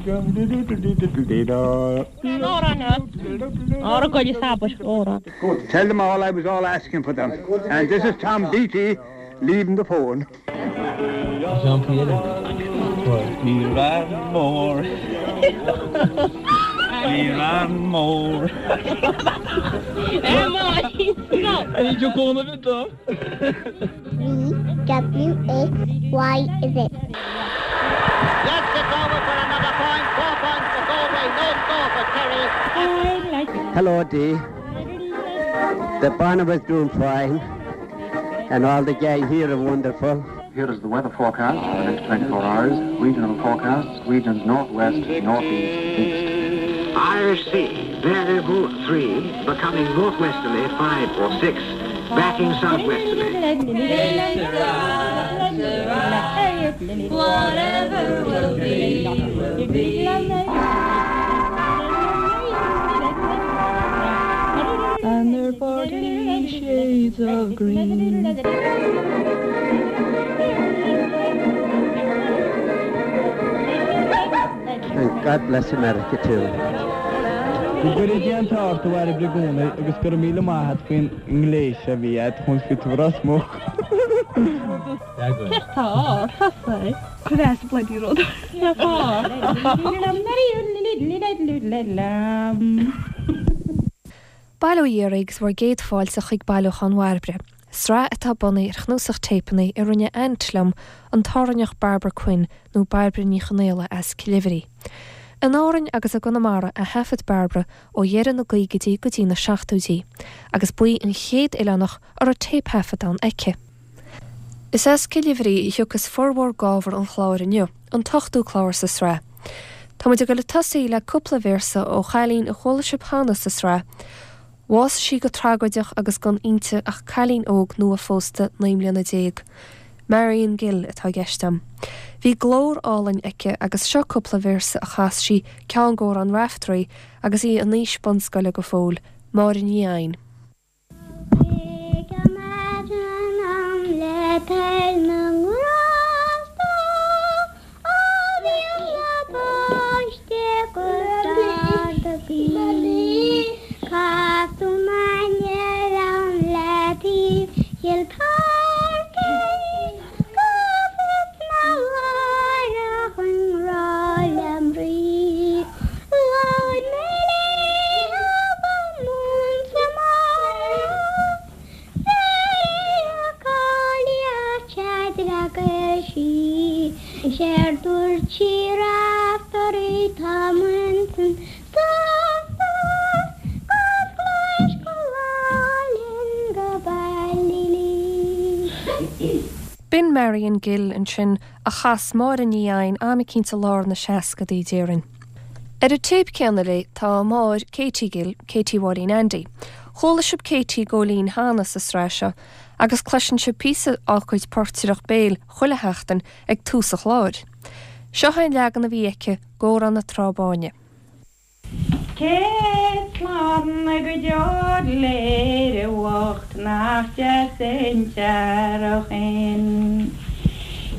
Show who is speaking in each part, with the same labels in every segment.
Speaker 1: Tell them all I was all asking for them. And this is Tom Beatty leaving the phone.
Speaker 2: Ní raibh mór. Ní raibh mór.
Speaker 3: V W X Y Z.
Speaker 4: Yes, it's over for another point. Four points for Galway, no score for Kerry.
Speaker 5: Hello, Dee. The Barnabas doing fine, and all the gang here are wonderful.
Speaker 6: Here is the weather forecast for the next 24 hours. Regional forecasts, regions northwest, northeast, east.
Speaker 7: Irish Sea, variable 3, becoming northwesterly 5 or 6, backing southwesterly.
Speaker 8: Whatever will be, will be.
Speaker 9: And they're 40 shades of green.
Speaker 5: And God bless America too.
Speaker 10: Go gcuire Dia an t-ádh ort a Bhairbre i gcónaí agus go raibh míle maith a't faoin ngléas a bhí a't chun fiú tú Ros Muc.
Speaker 11: Bail ó Dhia oraibh agus bhur gcéad fáilte chuig Bailiúchán Bhairbre, sraith atá bunaithe ar chnuasach téipeanna a rinne aint liom, an tÁrainneach Barbara Quinn, nó Bairbre Ní Chonaola as Cill Oibhrí. In Árainn agus i gConamara a thaifead Bairbre ó dheireadh na gcaogaidí go dtí na seachtóidí, agus ba í an chéad oileánach a raibh téipthaifeadán aici. Is as Cill Oibhrí a thiocfas formhór d'ábhar an chláir inniu, an t-ochtú clár sa sraith. Tá muid ag dul ag tosaí le cúpla véarsa ó chailín a chuala sibh cheana sa sraith. Bhásaigh sí go tragóideach agus gan inti ach cailín óg nua-phósta 19 mbliana. Marion Gill atá i gceist agam. Bhí glór álainn aici agus seo cúpla véarsa a chas sí, ceann d'amhráin Raiftearaí, agus í in aois bunscoile go fóill, Máire Ní Eidhin. B'in Marion Gill ansin a chas Máire Ní Eidhin am eicínt i lár na seascadaí, déarfainn. Ar an téip céanna léi tá a máthair Katie Gill, Katie Mháirín Andy. Chuala sibh Katie Góilín cheana sa sraith seo agus cloiseann sibh píosa dá cuid portaireacht béil chuile sheachtain ag tús an chláir. Seo é an leagan a bhí aici d'Amhrán na Trá Báine.
Speaker 12: Céad slán go deo le Éire bhocht nach deas an t-earrach shin.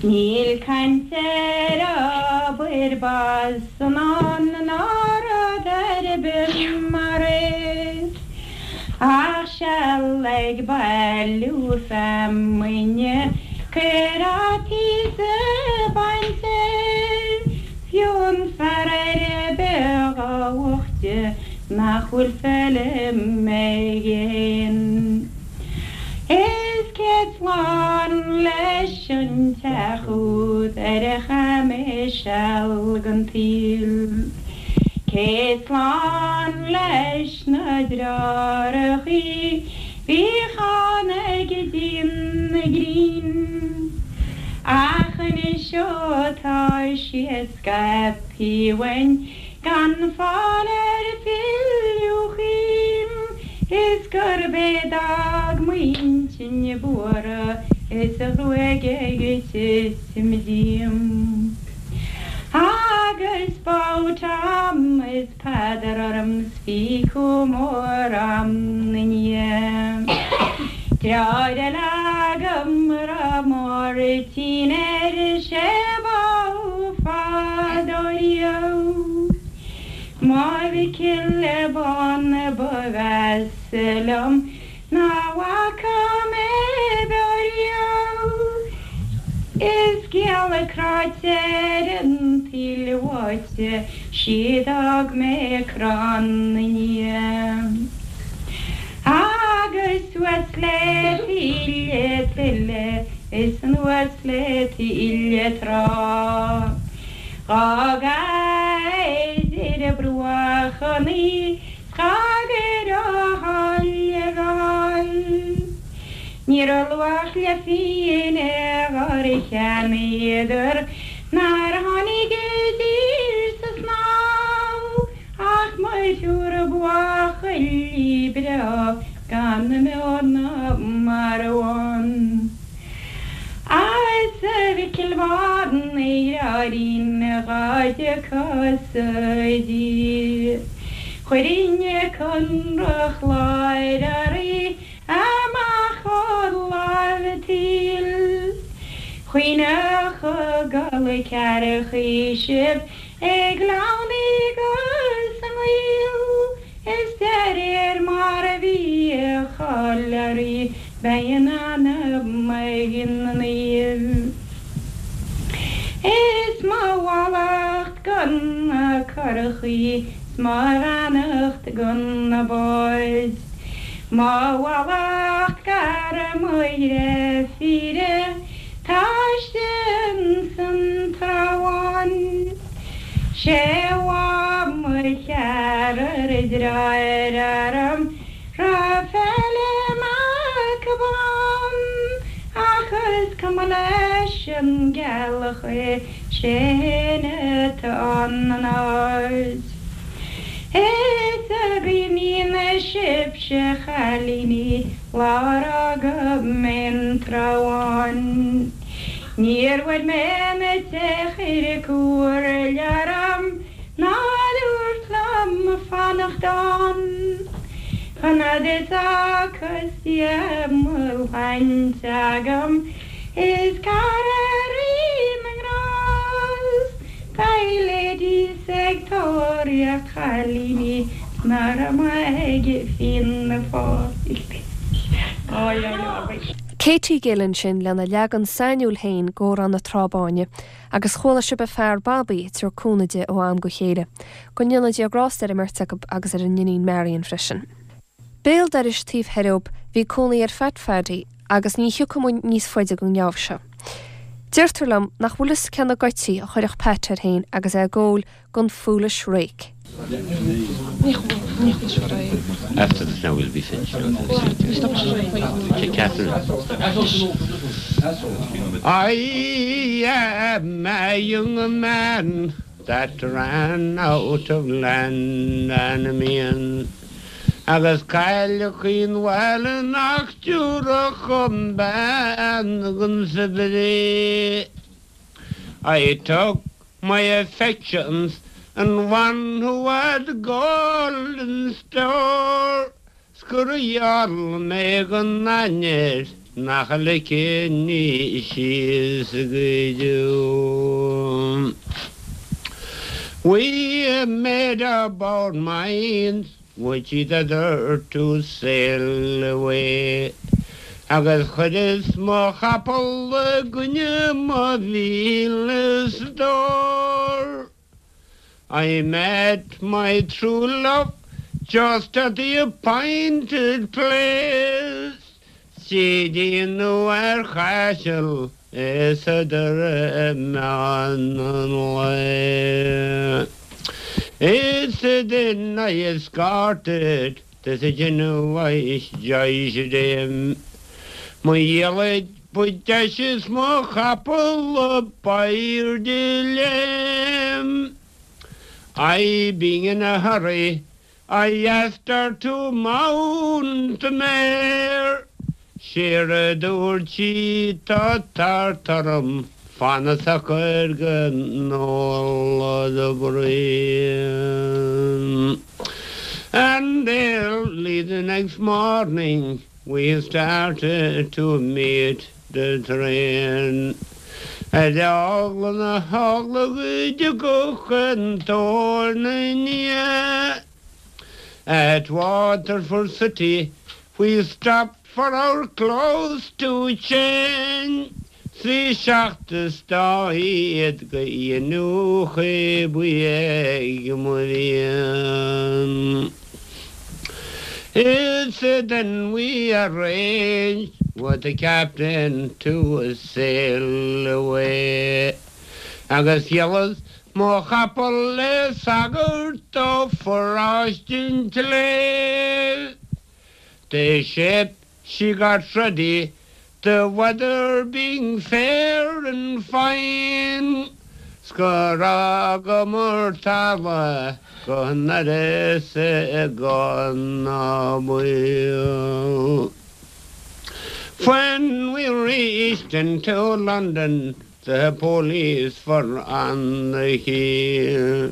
Speaker 12: Níl caint ar obair bás san ann ná rud ar bith mar é. Ach seal ag bailiú feamainne cuir fhaitíos a baint air. Fiú an fear ar bith dá bhoichte nach bhfuil feilm aige fhéin. Is céad slán leis an teach úd ar a chaith mé seal den tsaol. Céad slán leis na deartháireachaí bhíodh ann ag díon na gcrainn. Ach anois ó tá siad scaipthe uainn gan fáil ar filleadh chugainn is gurb é d'fhág m'intinn buartha is a ghruaig ag titim díom. Agus badh Tom is Peadar orm 's bhí cumha mór a'm 'na ndiaidh. Deartháir eile agam a raibh Máirtín air is é bádh fadó riamh. mo Mhicil bán ba mheasa liom ná bhfaca mé beo riamh. Is geal cráite ar an tsaol bháite sí d'fhág mé crann na ndiaidh. Agus suas le taoille tuile is anuas le taoille trá. Dh'fhágas ar bruach an 's dhá gcuir a thoil ar fáil. Ní raibh luach le phingin dhár cheannaíodar nár tháinig i dtír sa snámh ach mo thriúr buachaillí breá gan beo ná marbh ann. Is a Mhicil bháin a dheartháirín dhá dtiocfá-sa i dtír. Chuirfinn conradh chláir oraibh amach ó láimh an tsaoil. Choinneodh gol cearcaí sibh ag gleann agus i ngaol, is de réir mar a bhí a cháil oraibh beidh a n-anam ag na naoimh. Is mo mhallacht go na curachaí 's mo bheannacht go na báid. Mo mhallacht gar mo dhreifíre tá istigh insan Trá Bháin. Sé bhá mo cheathrar deartháir orm raibh Felim Mac Bán ach is cuma leis an gceallach é sé fhéin atá in airde. Is a gcuimhníonn sibhse a chailíní lá ar fhága mé an Trá Bháin. Níor bhuail mé na teach ar comhairle orm ná dúirt liom fanacht ann. Chun fhad is ocus mo shláinte agam is cara Rí na nGrást beidh ladies ag tóraíocht chailíní 's ná raibh mé ag Fianna Fáil.
Speaker 11: Katie Gill ansin lena leagan sainiúil féin d'Amhrán na Trá Báine agus chuala sibh a fear Bobby ag tabhairt cúnamh di ó am go chéile. Go ndéana Dia grásta ar an mbeirt acu agus ar a n-iníon Marion freisin. Béal dorais taobh thoir dhób bhí cónaí ar Phat Phaddy agus ní thiocfaidh muid níos faide den ngeábh seo. Deirtear liom nach bhfuil fhios cé na goití a chuirfeadh Pat air féin agus é ag ól gon foolish rake.
Speaker 13: After this now we'll be finished. Catherine. I am a young man that ran out of land and means agus cailleach an bhaile nach dtiúrfadh dhom bean gon saibhir I took my affections and one who had gold in store 's gur gheall mé gon ainnir nach ligfinn í síos go deo. We made up our minds with each other to sail away agus chuireas mo chapall i gcoinne mo mhíle stór. I met my true love just at the appointed place 's í déanamh ar chaiseal is a doire meán an lae. Is then I escorted to the Genoese dame. Mo dhiallaid ba deise is mo chapall a b'airde léim. I being in a hurry I asked her to mount the mare. 'Séard a dúirt sí tá tart orm fan socair go n-ólfad braon. And early the next morning we started to meet the train. Ar eagla na heagla go dtiocfadh an tóir 'na ndiaidh. At Waterford City we stopped for our clothes to change 's bhí seacht is dá fhichead go iniúchadh ba ag mo mhian. Is then we arranged with the captain to sail away agus dhíolas mo chapall le sagart ó pharóiste an tSléibhe. The ship she got ready the weather being fair and fine 's gur fhágamar talamh go n-uireasa gan ná baol. When we reached into London the police were on the heel.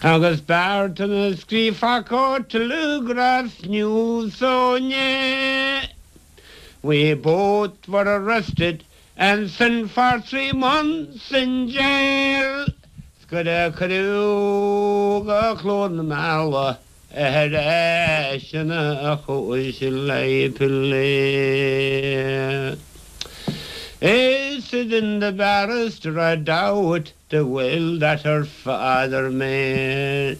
Speaker 13: Agus b'fhearr dom a scríobhfadh Telegraph News ó inné. We both were arrested and sent for 3 months in jail 's gur cuireadh go Cluain na Meala ar ais ina chúis le plé. Is then the barrister read out the will that her father made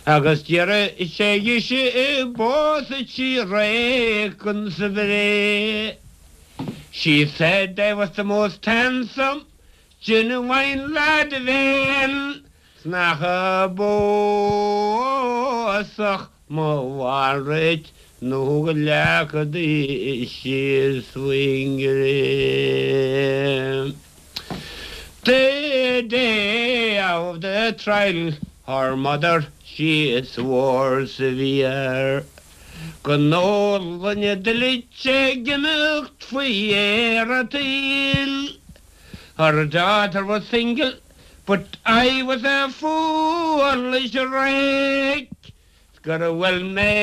Speaker 13: agus d'iarr sé dhise an bpósfadh sí réic sa bhfraoch. She said I was the most handsome genuine lad of aon 's nach a bpósfadh mo mhalrait nó go leagfadís síos faoin gcré. The day of the trial her mother she swore severe go n-ólfainn a dtuilleadh ag imeacht faoi dheireadh an tsaoil. Her daughter was single but I was a foolish rake 's gur bhuail mé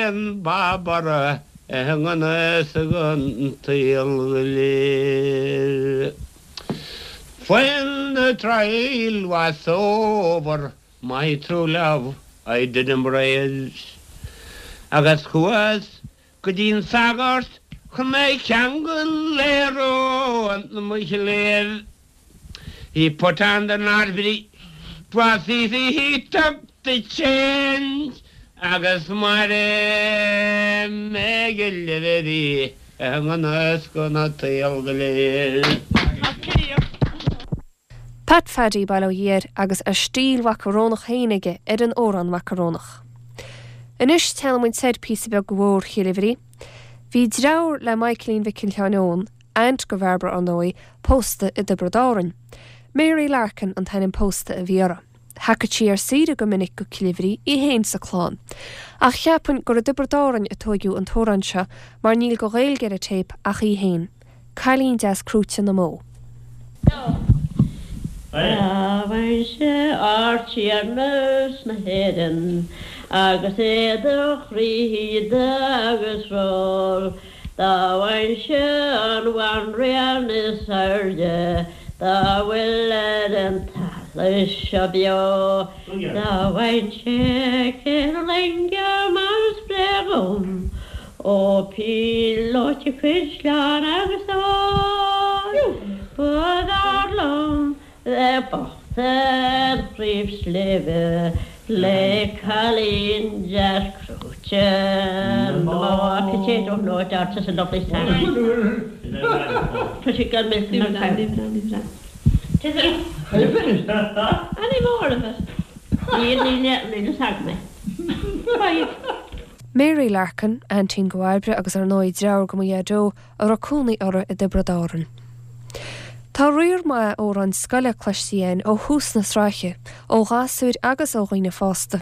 Speaker 13: an bob uirthi i ngan fhios don tsaol go léir. When the trial was over my true love I did embrace agus chuas Go dtí an sagart chun mé a cheangal le rón mo chléibh. He put on the knot 'twas easy he took the change agus mairfidh mé ag léamh í i ngan fhios don tsaol go léir.
Speaker 11: Pat Phaddy, bail ó Dhia air, agus a stíl mhacarónach féin aige ar an amhrán macarónach. Anois téanann muid soir píosa beag go Bóthar Chill Oibhrí. Bhí dreabhar le Michaelín Mhicil Sheáin Eoin, aint go Bhairbre ar ndóigh, pósta i dTiobraid Árann. Mary Larkin an t-ainm pósta a bhí uirthi. Thagadh sí ar saoire go minic go Cill Oibhrí, í féin 's a clann. Ach cheapfainn gur i dTiobraid Árainn a tóigeadh an t-amhrán seo mar níl go Ghaeilge ar an téip ach í féin. Cailín deas crúite na mbó.
Speaker 14: Dá bhfaighinnse Ardtiarnas na hÉireann agus é de chroí shíoda agus feoil, dá bhfaighinnse an bhanríon is airde dá bhfuil ar an talamh seo beo, dá bhfaighinnse ceithre loinge mar spré dhom, Ó píolóta caisleán agus ór, ba bhfearr liom bheith bocht ar chraobh sléibhe le cailín deas crúite na mbó. I don't know it, that's a lovely song. Pretty good milk and cow.
Speaker 15: Are you finished?
Speaker 14: Any more of it? Níl, níl, níl fhios agam é. Right.
Speaker 11: Mary Larkin, aintín go Bhairbre agus ar ndóigh dreabhar go mo dhaideo a raibh cónaí orthu i dTiobraid Árann. Tá riar maith amhráin scoile cloiste againn ó thús na sraithe, ó ghasúir agus ó dhaoine fásta.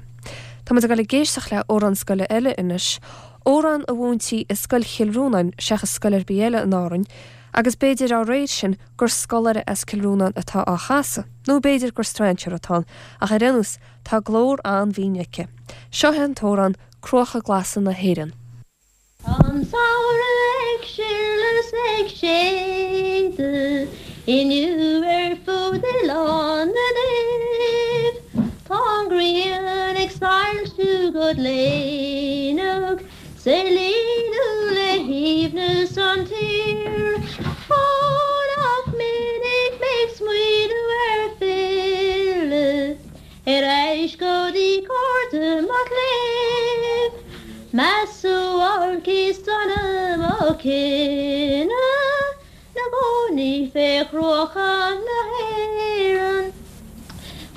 Speaker 11: Tá muid ag dul ag éisteacht le amhrán scoile eile anois, amhrán a mhúintí i Scoil Chill Rónáin seachas scoil ar bith eile in Árainn, agus b'fhéidir dá réir sin gur scoláire as Cill Rónáin atá á chasadh, nó b'fhéidir gur strainséir atá ann, ach ar aon nós tá glór an-bhinn aici. Seo é an t-amhrán Cruacha Glasa na hÉireann.
Speaker 8: Tá an samhradh ag sileadh 's ag séideadh inniu ar fud Oileán na Naomh. Tá an ghrian ag soilsiú go gléineach 's ag líonadh le haoibhneas an tír. Ó nach minic mé ag smaoineamh ar filleadh Ar ais go dtí cairde mo chléibh, Mo shuáilcí sona mo chine 'Na gcónaí fé chruacha na hÉireann.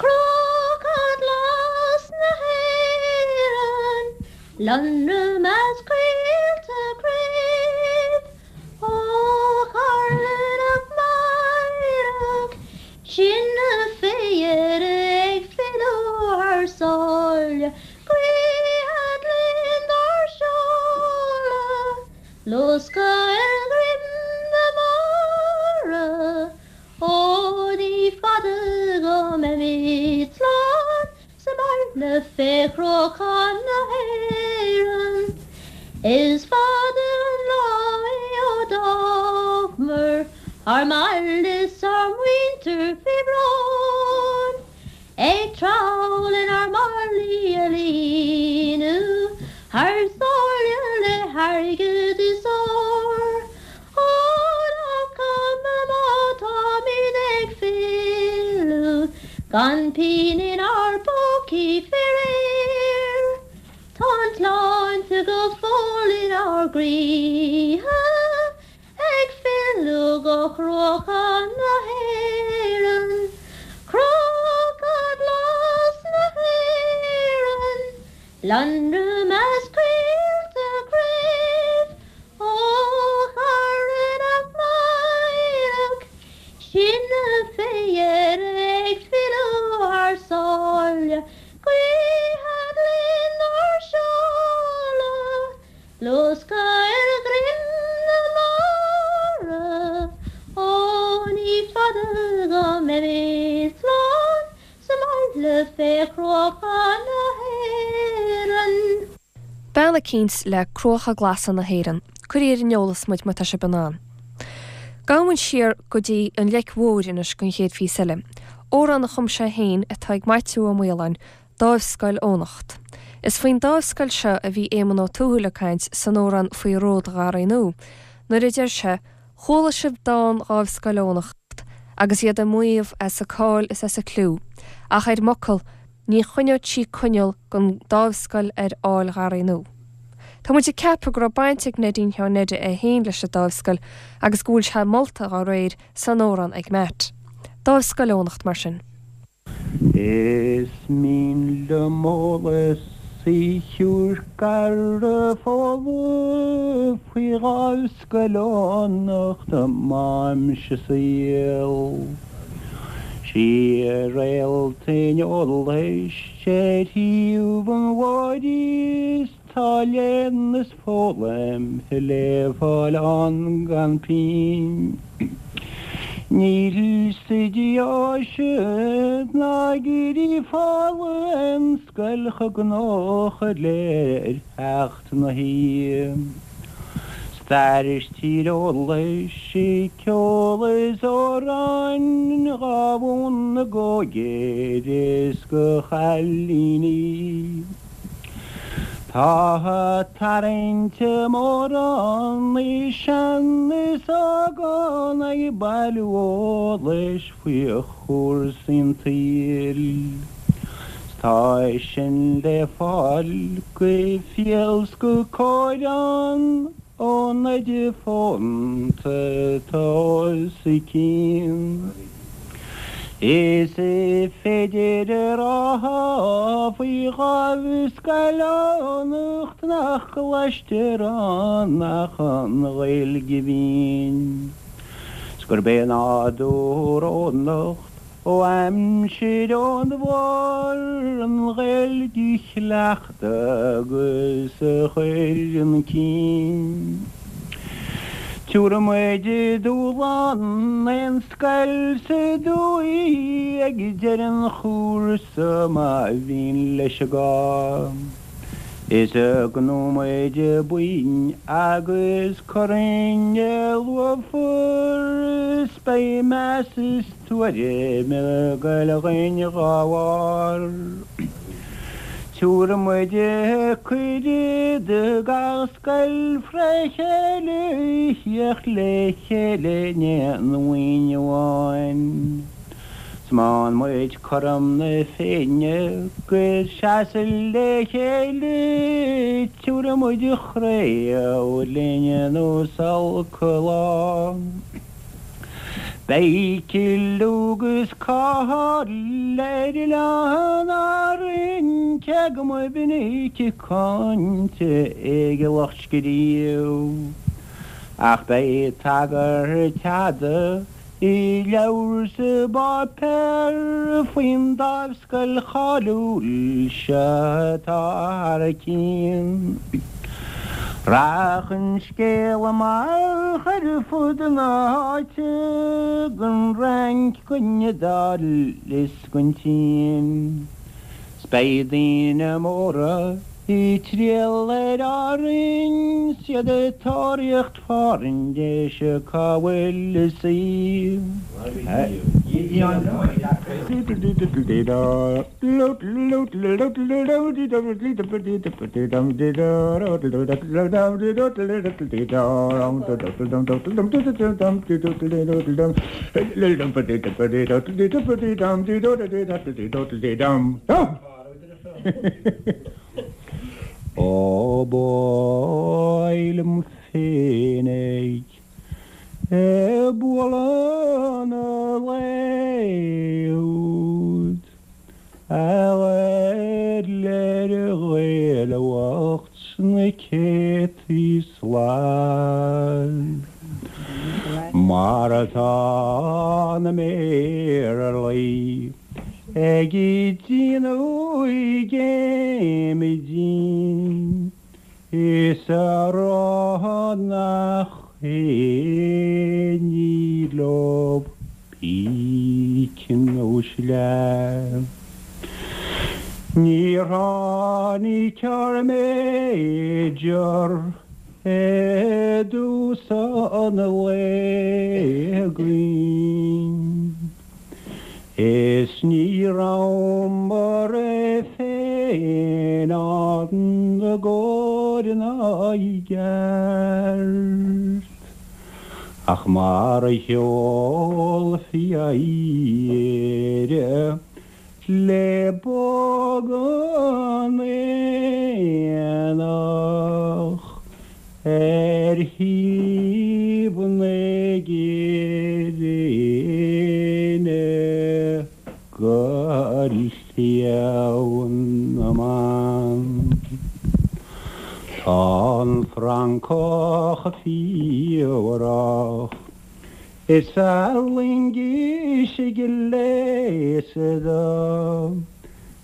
Speaker 8: Cruacha glas na hÉireann, Lonradh measc coillte craobh, Ó tharla nach mairfeadh Sinne fé dheireadh ag filleadh thar sáile, Guífead linn dár seoladh, Luascadh ar dhroim na mara, Ó ní fada go mbeimid slán Sa mbaile fé chruacha na hÉireann. Is fada an lá é ó d'fhágamar ár mbaile 's ár muintir fé bhrón, Ag treabhadh lenár málaí a líonadh thar sáile le hairgead is ór. Ó nach cuma má táimid ag filleadh gan pingin inár bpócaí faraor, tá an tsláinte go fóill inár gcroíthe ag filleadh go cruacha na hÉireann, cruacha glas na hÉireann. Lonradh measc coillte craobh, Ó a chara nach mairfeadh sinne fé dheireadh ag filleadh thar sáile, Guífead linn ár seoladh, luascadh ar dhroim na mara, Ó ní fada go mbeimid slán Sa mbaile fé chruacha na hÉireann.
Speaker 11: Bean eicínt le Cruacha Glasa na hÉireann. Cuirigí ar an eolas muid má tá sibh in ann. Gabhfaidh muid siar go dtí an Leic Mhóir anois don chéad phíosa eile. Amhrán a chum sé féin atá ag Maitiú Ó Maoláin, Dáimhscoil Eoghanacht. Is faoin dáimhscoil seo a bhí Éamonn Ó Tuathail ag caint san amhrán faoi Ród Gharraí Nua, nuair a deir sé, Chuala sibh dán Dháimhscoil Eoghanacht agus iad ag maíomh as a cáil is as a cliú, ach ar m'fhocal, ní choinneodh sí coinneal gon dáimhscoil ar Fhál Gharraí Nua. Tá muid ag ceapadh go raibh baint ag Neidín Sheáin Neide é féin leis an dáimhscoil agus go bhfuil sé molta dá réir san amhrán ag Matt. Dáimhscoil Eoghanacht, mar sin.
Speaker 13: Is mian liom eolas a thabhairt ar folamh faoi Dháimhscoil Eoghanacht m'aimse saoil. Sí réalt an eolais ar thaobh an bhóthair is Tá léann is foghlaim le fáil ann gan pingin. Níl sa deoise ná i gCiarraí folamh aon scoil chomh gnóthach le theacht na hoíche. Stair is tíreolas, ceol is amhráin dhá mhúineadh d'óigfhir is do chailíní. Tá tarraingt mhór ann i sean is óg ann ag bailiú eolais faoi chúrsaí an tsaoil. 'S tá sin le fáil go fial 's go cóir ann ón oide fónta atá os a cionn. Is féidir a rá faoi Dháimhscoil Eoghanacht nach gcloistear ann ach an Ghaeilge bhinn, 's gurb é nádúr Eoghanacht Ó aimsir Eoin Mhóir an Ghaeilge a chleachtadh agus a chur chun cinn. Tabharfaidh muid dúshlán aon scoil sa dúiche ag deireadh an chúrsa má mhian leis an gcás. Is go nóiméid buinn agus corn luafar is beidh meas is tuairim ag goil againn dhá bharr. Tiúrfaidh muid cuireadh do gach scoil fré chéile theacht le chéile in aon bhuíon amháin. 'S maíonn muid cothrom na Féinne 'gus seasamh le chéile, tiúrfaidh muid an chraobh linn nó 's olc an lá. Beidh clú 'gus cáil ar Oileáin Árann cé go mba mhinic cáinte ag a lucht scríobh, ach beidh tagairt fhada I leabhar 's i bpáipéar faoin dáimhscoil cháiliúil seo atá thar cionn. Rachaidh an scéal amach ar fud na háite, gon Fhrainc, gon Iodáil is gon tSín. 'S beidh daoine móra ag triall ar Árainn 's iad ag tóraíocht fáirnéise cá bhfuil a suí. Ó b'áil liom féinig ag bualadh na lae úd a ghoil ar Ghaeil bhocht sna céadtaí slad mar atá na mBéarlaí. Ag déanamh géime dínn is a rá nach aon ní leo píce nó sleá. Níor tháinig ár Major i dtús an lae againn. Is ní rabhamar féin ann i gcóir ná i gceart, ach mar a sheolfaí Éire le bog an aonach ar thaobh na gréine go Sliabh na mBan. Tá an Francach fiabhrach is a loingis gléasta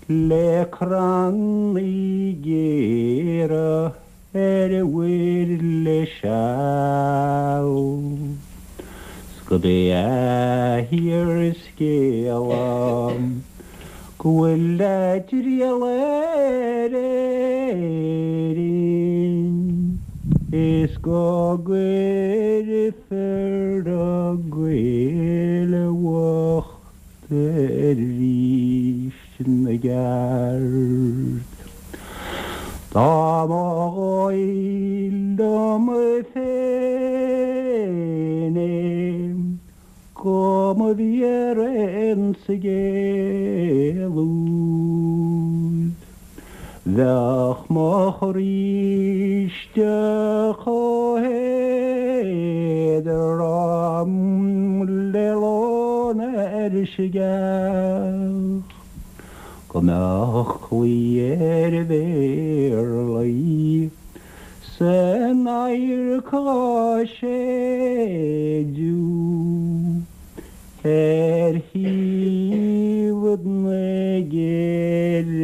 Speaker 13: le crannaí géara ar mhuir le seal 's gurb é a fhíorscéala go bhfuil a dtriall ar Éirinn is go gcuirfear na Gaeil bhochta arís 'na gceart. Dá mba dhóigh liom féin é go mba bhfíor an scéal úd, bheadh mo chroí istigh chomh héadrom le lón ar sceach, go mbeadh claí ar Bhéarlaí san adharc dhá séideadh ar thaobh na gréine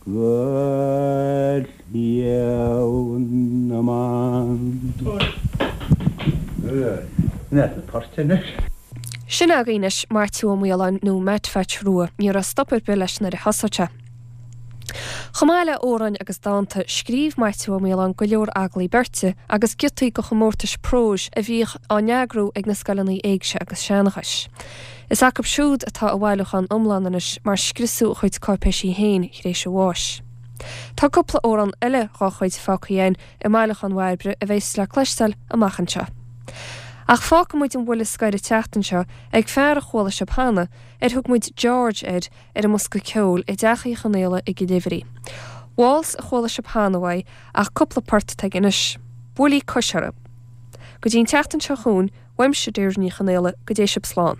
Speaker 13: go Sliabh na mBan.
Speaker 11: Sin againn anois Maitiú Ó Maoláin nó Matt Phatch Rua. Ní raibh stop ar bith leis nuair a thosaigh sé. Chomh maith le amhráin agus dánta, scríobh Maitiú Ó Maoláin go leor agallaí beirte agus giotaí do chomórtais próis a bhíodh á n-eagrú ag na scoileanna éigse agus seanchais. Is acu siúd atá a bhailiúchán iomlán anois mar scriosadh a chuid cáipéisí féin tar éis a bháis. Tá cúpla amhrán eile dhá chuid fágtha againn i mbailiúchán Bhairbre a bheas le cloisteáil amach anseo. Ach fágfaidh muid an bhuille scoir an tseachtain seo ag fear a chuala sibh cheana, ar thug muid George air ar an mbosca ceoil i dTeach Uí Chonaola i gCill Uimhrí. Waltz a chuala sibh cheana uaidh ach cúpla port atá aige anois. Buailí cois orthu. Go dtí an tseachtain seo chugainn, uaimse Deirdre Ní Chonaola, go dté sibh slán.